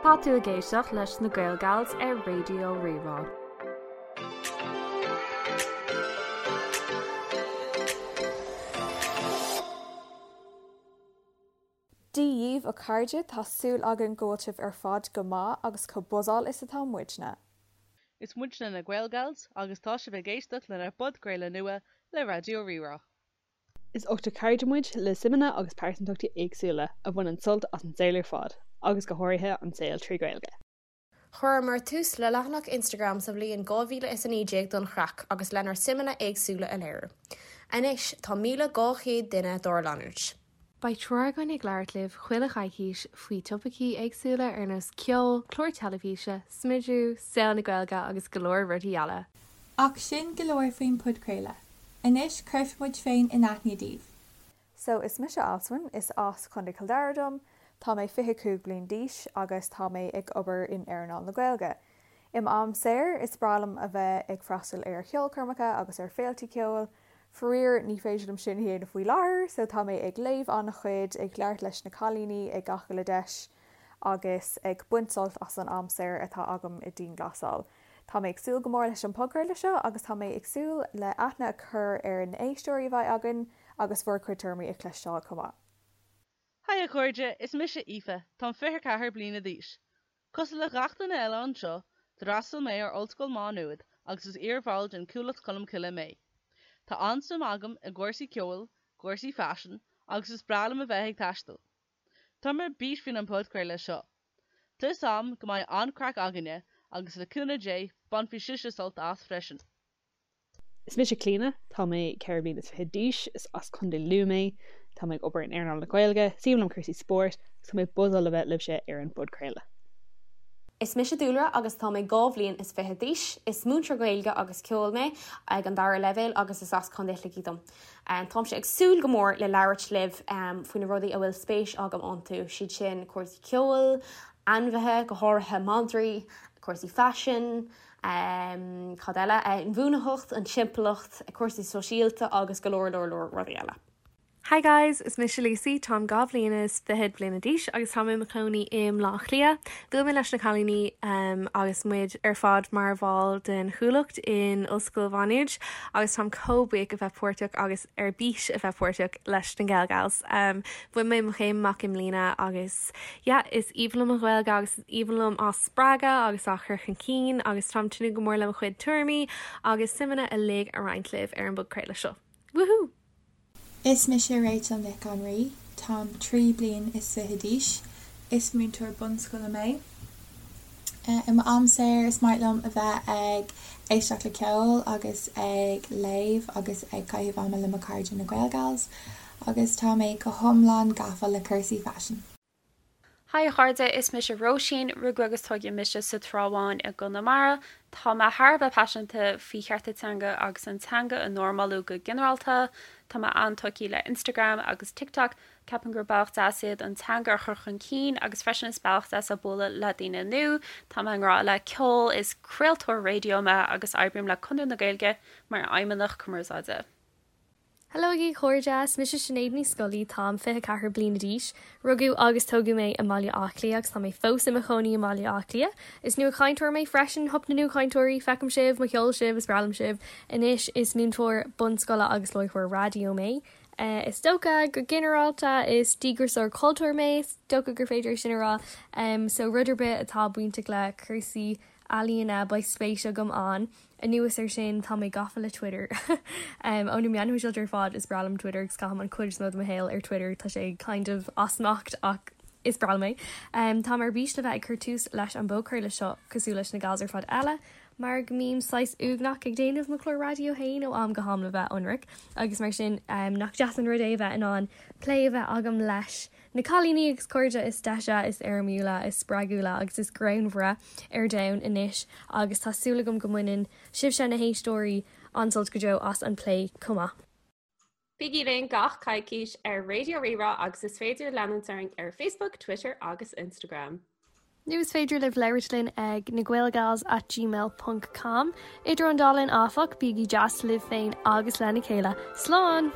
Tá tú ag éisteacht leis na Gaelgals ar Raidió Rí-Rá. Dia dhíbh a chairde, tá súil againn go bhfuil sibh ar fad go maith agus chomh buzzáil is atá muidne. Is muidne na Gaelgals agus tá sibh ag éisteacht lenár bpodchraoladh nua le Raidió Rí-Rá. Is ochtar cairde muid le suimeanna agus pearsantachtaí éagsúla a bhaineann sult as an saol ar fad, agus go háirithe an saol trí Ghaeilge. Chuireamar tús le leathanach Instagram sa bhliain 2019 don chraic agus lenár suimeanna éagsúla a léiriú. Anois tá 1,200 duine dár leanúint. Beidh triúr againn ag labhairt libh chuile choicís faoi topaicí éagsúla ar nós ceol, cláir teilifíse, smidiú, saol na Gaeilge agus go leor rudaí eile. Ach sin go leor faoin podchraoladh. Anois cuirfidh muid féin in aithne daoibh. So is mise Alswyn, is as Contae Chill Dara dom, tá mé 25 bliain d'aois agus tá mé ag obair in earnáil na Gaeilge. I m'am saor, is breá liom a bheith ag freastal ar cheolchoirmeacha agus ar féiltí ceoil. Faraor, ní féidir liom sin a dhéanamh faoi láthair, so tá mé ag léamh an-chuid, ag labhairt leis na cailíní ag gach uile deis agus ag baint sult as an am saor atá agam i dianghlasáil. Tá mé ag súil go mór leis an podchraoladh seo agus tá mé ag súil le aithne a chur ar na éisteoirí a bheidh againn agus bhur gcuid tuairimí a chloisteáil chomh maith. Haigh a chairde, is mise Aoife, táim 24 bliana d'aois. Cosúil le gach duine eile anseo, d'fhreastail mé ar Ollscoil Mhá Nuad agus is iarbhall den Chuallacht Cholmcille mé. Tá an-suim agam i gcúrsaí ceoil, cúrsaí faisin agus is breá liom a bheith ag taisteal. Táim ar bís faoin an podchraoladh seo. Tá 'fhios a'm go mbeidh an-craic againne agus le cúnamh Dé bainfidh sibhse sult as freisin. Is mise Clíona, tá mé 24 bliana d'aois, is as Contae Lú mé, tá mé ag obair in earnáil na Gaeilge, is aoibhinn liom cúrsaí spóirt agus tá mé buzzáil le bheith libhse ar an bpodchraoladh. Is mise Dúlra agus tá mé 22 bhliain is d'aois. Is múinteoir Gaeilge agus ceoil mé ag an dara leibhéal agus is as Contae Shligigh dom. Táimse ag súil go mór le labhairt libh faoi na rudaí a bhfuil spéis agam iontu, siad sin cúrsaí ceoil, ainmhithe, go háirithe madraí, cúrsaí faisin, cad eile, inbhuanaitheacht, an timpeallacht, cúrsaí sóisialta agus go leor leor leor rudaí eile. Hi guys, is mise Lucy, táim 22 bhliana is fichead bliana d'aois agus táim i mo chónaí i mBleá Cliath. Bhuail mé leis na cailíní agus muid ar fad mar bhall den Chuallacht in Ollscoil Mhá Nuad agus táim chomh buíoch a bheith páirteach agus ar bís a bheith páirteach leis na Gaelgals. Bhain mé mo chéim amach i mbliana agus yeah, is aoibhinn liom an Ghaeilge agus is aoibhinn liom á spreagadh agus á chur chun cinn agus táim ag tnúth go mór le mo chuid tuairimí agus suimeanna uilig a roinnt libh ar an bpodchraoladh seo. Woohoo! Is mise Rachel Nic an Rí, táim 23 bliain is d'aois, is múinteoir bunscoile mé. I m'am saor is maith liom a bheith ag éisteacht le ceol agus ag léamh agus ag caitheamh ama le mo chairde na Gaelgals agus tá mé go hiomlán gafa le cúrsaí faisin. Haigh a chairde, is mise Róisín, rugadh agus tógadh mise sa Trá Bháin i gConamara. Tá mé thar a bheith paiseanta faoi chearta teanga agus an teanga a normalú go ginearálta. Tá mé an-tógtha le Instagram agus TikTok, ceapaim gur bealach deas iad an teanga a chur chun cinn agus freisin is bealach deas é bualadh le daoine nua. Tá mé i ngrá le ceol, is craoltóir raidió mé agus oibrím le Conradh na Gaeilge mar fheidhmeannach cumarsáide. Hello a chairde, is mise Sinéad Ní Scolaí, táim 24 bliana d'aois. Rugadh agus tógadh mé i mBaile Átha Cliath agus tá mé fós i mo chónaí i mBaile Átha Cliath. Is nuachainteoir mé freisin, hup na nuachainteoirí, feicim sibh, mo cheol sibh, is breá liom sibh. Anois is múinteoir bunscoile agus láithreoir raidió mé. Is dócha go ginearálta is díograiseoir cultúir mé, is dócha gur féidir é sin a rá. So rud ar bith atá bainteach le cúrsaí ealaíona beidh spéis agam ann. Anuas air sin, tá mé gafa le Twitter. Ó na meáin shóisialta ar fad, is breá liom Twitter agus caithim an chuid is mó de mo shaol ar Twitter. Tá sé kind of as smacht ach is breá liom é. Táim ar bís le bheith ag cur tús leis an bpodchraoladh seo cosúil leis na gals ar fad eile mar go mbím saghas uaigneach ag déanamh mo chlár raidió féin ó am go ham le bheith ionraic agus mar sin nach deas an rud é a bheith in ann plé a bheith agam leis na cailíní agus cairde is deise, is éirimiúla, is spreagúla agus is greannmhaire ar domhan anois agus tá súil agam go mbaineann sibhse, na héisteoirí, an-sult go deo as an bplé chomh maith. Bígí linn gach coicís ar Raidió Rí-Rá agus is féidir leanúint orainn ar Facebook, Twitter agus Instagram. Nó is féidir libh labhairt linn ag nagaelgals at gmail ponc com. Idir an dá linn áfach, bígí deas libh féin agus lena chéile. Slán!